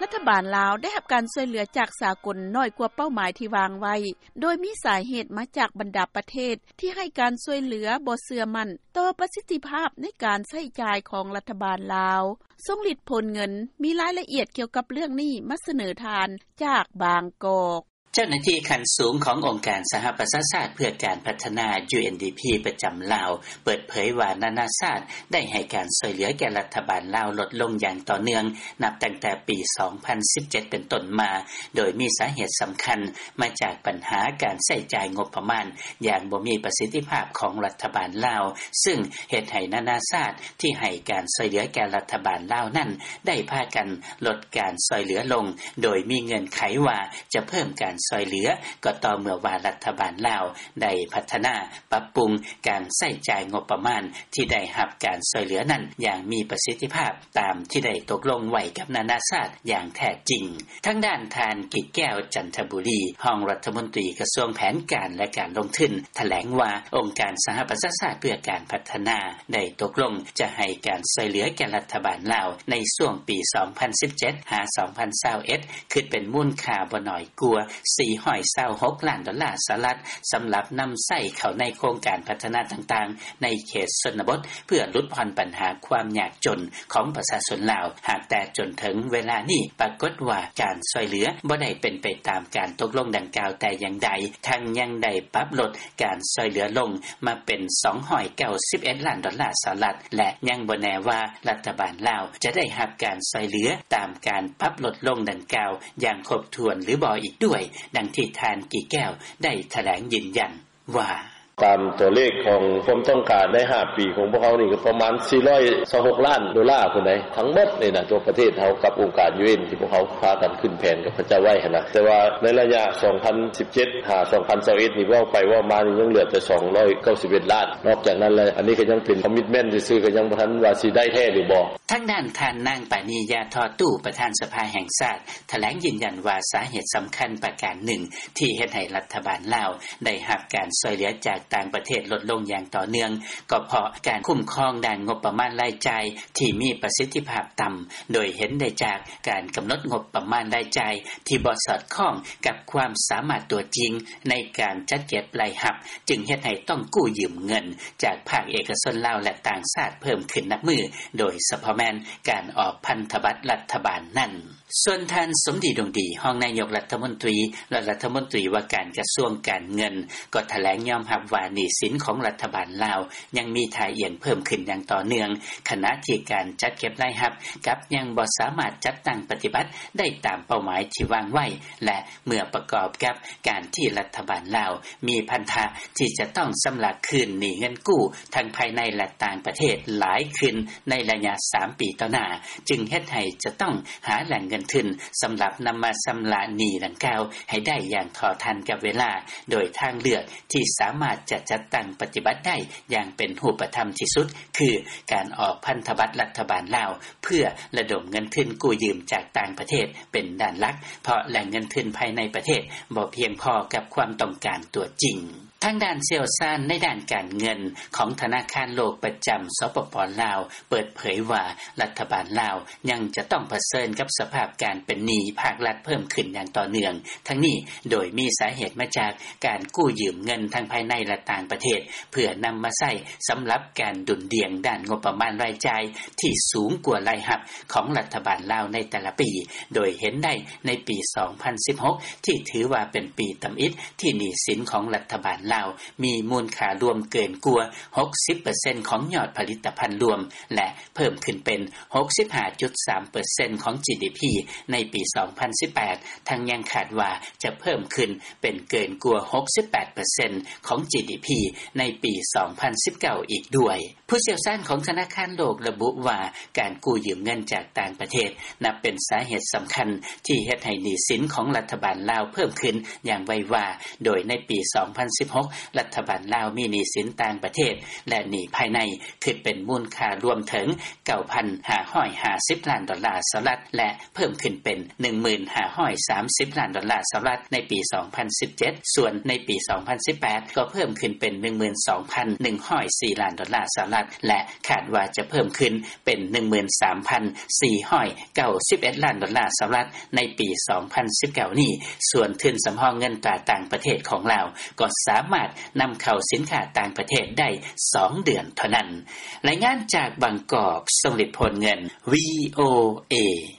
ລັດຖະບານລາວ ໄດ້ຮັບການຊ່ວຍເຫຼືອ ຈາກສາກົນ ໜ້ອຍກວ່າເປົ້າໝາຍ ທີ່ວາງໄວ້ ໂດຍມີສາເຫດ ມາຈາກບັນດາປະເທດ ທີ່ໃຫ້ການຊ່ວຍເຫຼືອ ບໍ່ເຊື່ອໝັ້ນ ຕໍ່ປະສິດທິພາບ ໃນການໃຊ້ຈ່າຍ ຂອງລັດຖະບານລາວ ຊົງລິດຜົນເງິນ ມີລາຍລະອຽດ ກ່ຽວກັບເລື່ອງນີ້ ມາສະເໜີທ່ານ ຈາກບາງກອກ. ເຈົ້າໜ້າທີ່ຂັ້ນສູງ ຂອງອົງການສະຫະປະຊາຊາດ ເພື່ອການພັດທະນາ UNDP ປະຈຳລາວ ເປີດເຜີຍວ່າ ນານາຊາດ ໄດ້ໃຫ້ການຊ່ວຍເຫຼືອ ແກ່ລັດຖະບານລາວ ລົດລົງຢ່າງຕໍ່ເນື່ອງ ນັບຕັ້ງແຕ່ປີ ສອງພັນສິບເຈັດ ເປັນຕົ້ນມາ ໂດຍມີສາເຫດສຳຄັນ ມາຈາກບັນຫາ ການໃຊ້ຈ່າຍງົບປະມານ ຢ່າງບໍ່ມີປະສິດທິພາບ ຂອງລັດຖະບານລາວ ຊຶ່ງເຮັດໃຫ້ນານາຊາດ ທີ່ໃຫ້ການຊ່ວຍເຫຼືອ ແກ່ລັດຖະບານລາວນັ້ນ ໄດ້ພາກັນ ລົດການຊ່ອຍເຫຼືອລົງ ໂດຍມີເງື່ອນໄຂວ່າ ຈະເພີ່ມການຊ່ອຍເຫຼືອ ກໍຕໍ່ເມື່ອວ່າ ລັດຖະບານລາວ ໄດ້ພັດທະນາ ປັບປຸງ ການໃຊ້ຈ່າຍງົບປະມານ ທີ່ໄດ້ຮັບການຊ່ອຍເຫຼືອນັ້ນ ຢ່າງມີປະສິດທິພາບ ຕາມທີ່ໄດ້ຕົກລົງໄວ້ ກັບນານາຊາດ ຢ່າງແທ້ຈິງ. ທາງດ້ານທ່ານ ກິດແກ້ວ ຈັນທະບູລີ ຮອງລັດຖະມົນຕີ ກະຊວງແຜນການ ແລະ ການລົງທຶນ ຖະແຫຼງວ່າ ອົງການສະຫະປະຊາຊາດ ເພື່ອການພັດທະນາ ໄດ້ຕົກລົງ ຈະໃຫ້ການຊ່ອຍເຫຼືອ ແກ່ລັດຖະບານລາວ ໃນຊ່ວງປີ ສອງພັນສິບເຈັດ ຫາ ສອງພັນຊາວເອັດ ຄິດເປັນມູນຄ່າ ບໍ່ໜ້ອຍກວ່າ ສີ່ຮ້ອຍຊາວຫົກລ້ານ ດອນລາສະຫະລັດ ສຳລັບນຳໃຊ້ເຂົ້າໃນໂຄງການ ພັດທະນາຕ່າງໆ ໃນເຂດຊົນນະບົດ ເພື່ອຫຼຸດຜ່ອນບັນຫາ ຄວາມຍາກຈົນ ຂອງປະຊາຊົນລາວ. ຫາກແຕ່ຈົນເຖິງເວລານີ້ ປາກົດວ່າ ການຊ່ອຍເຫຼືອ ບໍ່ໄດ້ເປັນໄປຕາມ ການຕົກລົງດັ່ງກ່າວ ແຕ່ຢ່າງໃດ ທັງຍັງໄດ້ປັບລົດ ການຊ່ອຍເຫຼືອລົງ ມາເປັນ ສອງຮ້ອຍເກົ້າສິບເອັດລ້ານ ດອນລາສະຫະລັດ ແລະ ຍັງບໍ່ແນ່ວ່າ ລັດຖະບານລາວ ຈະໄດ້ຮັບການຊ່ອຍເຫຼືອ ຕາມການປັບລົດລົງດັ່ງກ່າວ ຢ່າງຄົບຖ້ວນ ຫຼືບໍ່ອີກດ້ວຍ. ດັ່ງທີ່ທ່ານ ກິດແກ້ວ ໄດ້ຖະແຫຼງຢືນຢັນວ່າ: “ຕາມຕົວເລກ ຂອງຄວາມຕ້ອງການ ໃນຫ້າປີ ຂອງພວກເຮົານີ້ ກໍປະມານ ສີ່ຮ້ອຍຊາວຫົກລ້ານ ດອນລາພຸ້ນໃດ໋ ທັງໝົດນີ້ນະ ທົ່ວປະເທດເຮົາ ກັບອົງການ UN ທີ່ພວກເຮົາພາກັນຂຶ້ນແຜນ ກັບເຂົາເຈົ້າໄວ້ຫັ້ນນະ. ແຕ່ວ່າໃນໄລຍະ ສອງພັນສິບເຈັດ ຫາ ສອງພັນຊາວເອັດ ນີ້ ເວົ້າໄປເວົ້າມານີ້ ຍັງເຫຼືອແຕ່ ສອງຮ້ອຍເກົ້າສິບເອັດລ້ານ. ນອກຈາກນັ້ນແລ້ວ ອັນນີ້ກໍຍັງເປັນ commitment ຊື່ໆ ກໍຍັງບໍ່ທັນວ່າ ຊິໄດ້ແທ້ ຫຼືບໍ່.” ທາງດ້ານທ່ານ ນາງ ປານີ ຢາທໍ່ຕູ້ ປະທານສະພາແຫ່ງຊາດ ຖະແຫຼງຢືນຢັນວ່າ ສາເຫດສຳຄັນປະການໜຶ່ງ ທີ່ເຮັດໃຫ້ລັດຖະບານລາວ ໄດ້ຮັບການຊ່ອຍເຫຼືອ ຈາກຕ່າງປະເທດ ລົດລົງຢ່າງຕໍ່ເນື່ອງ ກໍເພາະການຄຸ້ມຄອງ ດ້ານງົບປະມານລາຍຈ່າຍ ທີ່ມີປະສິດທິພາບຕ່ຳ ໂດຍເຫັນໄດ້ຈາກ ການກຳນົດງົບປະມານລາຍຈ່າຍ ທີ່ບໍ່ສອດຄ່ອງ ກັບຄວາມສາມາດຕົວຈິງ ໃນການຈັດເກັບລາຍຮັບ ຈຶ່ງເຮັດໃຫ້ຕ້ອງກູ້ຢືມເງິນ ຈາກພາກເອກະຊົນລາວ ແລະ ຕ່າງຊາດ ເພີ່ມຂຶ້ນນັບມື້ ໂດຍສະເພາະແມ່ນ ການອອກພັນທະບັດລັດຖະບານນັ້ນ. ສ່ວນທ່ານ ສົມດີ ດົງດີ ຮອງນາຍົກລັດຖະມົນຕີ ແລະ ລັດຖະມົນຕີວ່າການ ກະຊວງການເງິນ ກໍຖະແຫຼງຍອມຮັບວ່າ ໜີ້ສິນຂອງລັດຖະບານລາວ ຍັງມີທ່າອ່ຽງເພີ່ມຂຶ້ນຢ່າງຕໍ່ເນື່ອງ ຂະນະທີ່ການຈັດເກັບລາຍຮັບ ກັບຍັງບໍ່ສາມາດຈັດຕັ້ງປະຕິບັດ ໄດ້ຕາມເປົ້າໝາຍທີ່ວາງໄວ້ ແລະ ເມື່ອປະກອບກັບການທີ່ລັດຖະບານລາວ ມີພັນທະທີ່ຈະຕ້ອງຊຳລະຄືນໜີ້ເງິນກູ້ ທັງພາຍໃນ ແລະ ຕ່າງປະເທດຫຼາຍຂຶ້ນ ໃນໄລຍະສາມປີຕໍ່ໜ້າ ຈຶ່ງເຮັດໃຫ້ຈະຕ້ອງຫາແຫຼ່ງເງິນທຶນ ສຳລັບນຳມາຊຳລະໜີ້ດັ່ງກ່າວ ໃຫ້ໄດ້ຢ່າງເທົ່າທັນກັບເວລາ ໂດຍທາງເລືອກທີ່ສາມາດຈະຈັດຕັ້ງປະຕິບັດໄດ້ ຢ່າງເປັນຮູບປະທຳທີ່ສຸດ ຄືການອອກພັນທະບັດລັດຖະບານລາວ ເພື່ອລະດົມເງິນທຶນກູ້ຢືມຈາກຕ່າງປະເທດເປັນດ້ານຫຼັກ ເພາະແຫຼ່ງເງິນທຶນພາຍໃນປະເທດບໍ່ພຽງພໍກັບຄວາມຕ້ອງການຕົວຈິງ. ທາງດ້ານຊ່ຽວຊານໃນດ້ານການເງິນຂອງທະນາຄານໂລກປະຈຳ ສປປ ລາວ ເປີດເຜີຍວ່າ ລັດຖະບານລາວຍັງຈະຕ້ອງປະເຊີນກັບສະພາບການເປັນໜີ້ພາກລັດເພີ່ມຂຶ້ນຢ່າງຕໍ່ເນື່ອງ ທັງນີ້ໂດຍມີສາເຫດມາຈາກການກູ້ຢືມເງິນທັງພາຍໃນ ແລະ ຕ່າງປະເທດ ເພື່ອນຳມາໃຊ້ສຳລັບການດຸ່ນດ່ຽງດ້ານງົບປະມານລາຍຈ່າຍທີ່ສູງກວ່າລາຍຮັບຂອງລັດຖະບານລາວໃນແຕ່ລະປີ ໂດຍເຫັນໄດ້ໃນປີ ສອງພັນສິບຫົກ ທີ່ຖືວ່າເປັນປີທຳອິດທີ່ໜີ້ສິນຂອງລັດຖະບານລາວມີມູນຄ່າລວມເກີນກວ່າ ຫົກສິບເປີເຊັນ ຂອງຍອດຜະລິດຕະພັນລວມ ແລະ ເພີ່ມຂຶ້ນເປັນ ຫົກສິບຫ້າຈຸດສາມເປີເຊັນ ຂອງ GDP ໃນປີ ສອງພັນສິບແປດ ທັງຍັງຄາດວ່າຈະເພີ່ມຂຶ້ນເປັນເກີນກວ່າ ຫົກສິບແປດເປີເຊັນ ຂອງ GDP ໃນປີ ສອງພັນສິບເກົ້າ ອີກດ້ວຍ. ຜູ້ຊ່ຽວຊານຂອງທະນາຄານໂລກລະບຸວ່າ ການກູ້ຢືມເງິນຈາກຕ່າງປະເທດ ນັບເປັນສາເຫດສຳຄັນທີ່ເຮັດໃຫ້ໜີ້ສິນຂອງລັດຖະບານລາວເພີ່ມຂຶ້ນຢ່າງໄວວາ ໂດຍໃນປີ ສອງພັນສິບຫົກ ລັດຖະບານລາວມີໜີ້ສິນຕ່າງປະເທດ ແລະ ໜີ້ພາຍໃນ ຄິດເປັນມູນຄ່າລວມເຖິງ 9,550 ລ້ານດອນລາສະຫະລັດ ແລະ ເພີ່ມຂຶ້ນເປັນ 1,530 ລ້ານດອນລາສະຫະລັດ ໃນປີ 2017 ສ່ວນໃນປີ 2018 ກໍເພີ່ມຂຶ້ນເປັນ 12,104 ລ້ານດອນລາສະຫະລັດ ແລະ ຄາດວ່າຈະເພີ່ມຂຶ້ນເປັນ 13,491 ລ້ານດອນລາສະຫະລັດ ໃນປີ 2019 ນີ້. ສ່ວນທຶນສຳຮອງເງິນຕາຕ່າງປະເທດຂອງລາວ ກໍສາມາດນຳເຂົ້າສິນຄ້າຕ່າງປະເທດໄດ້ ສອງເດືອນເທົ່ານັ້ນ. ລາຍງານຈາກບາງກອກ ຊົງລິດ ໂພນເງິນ VOA.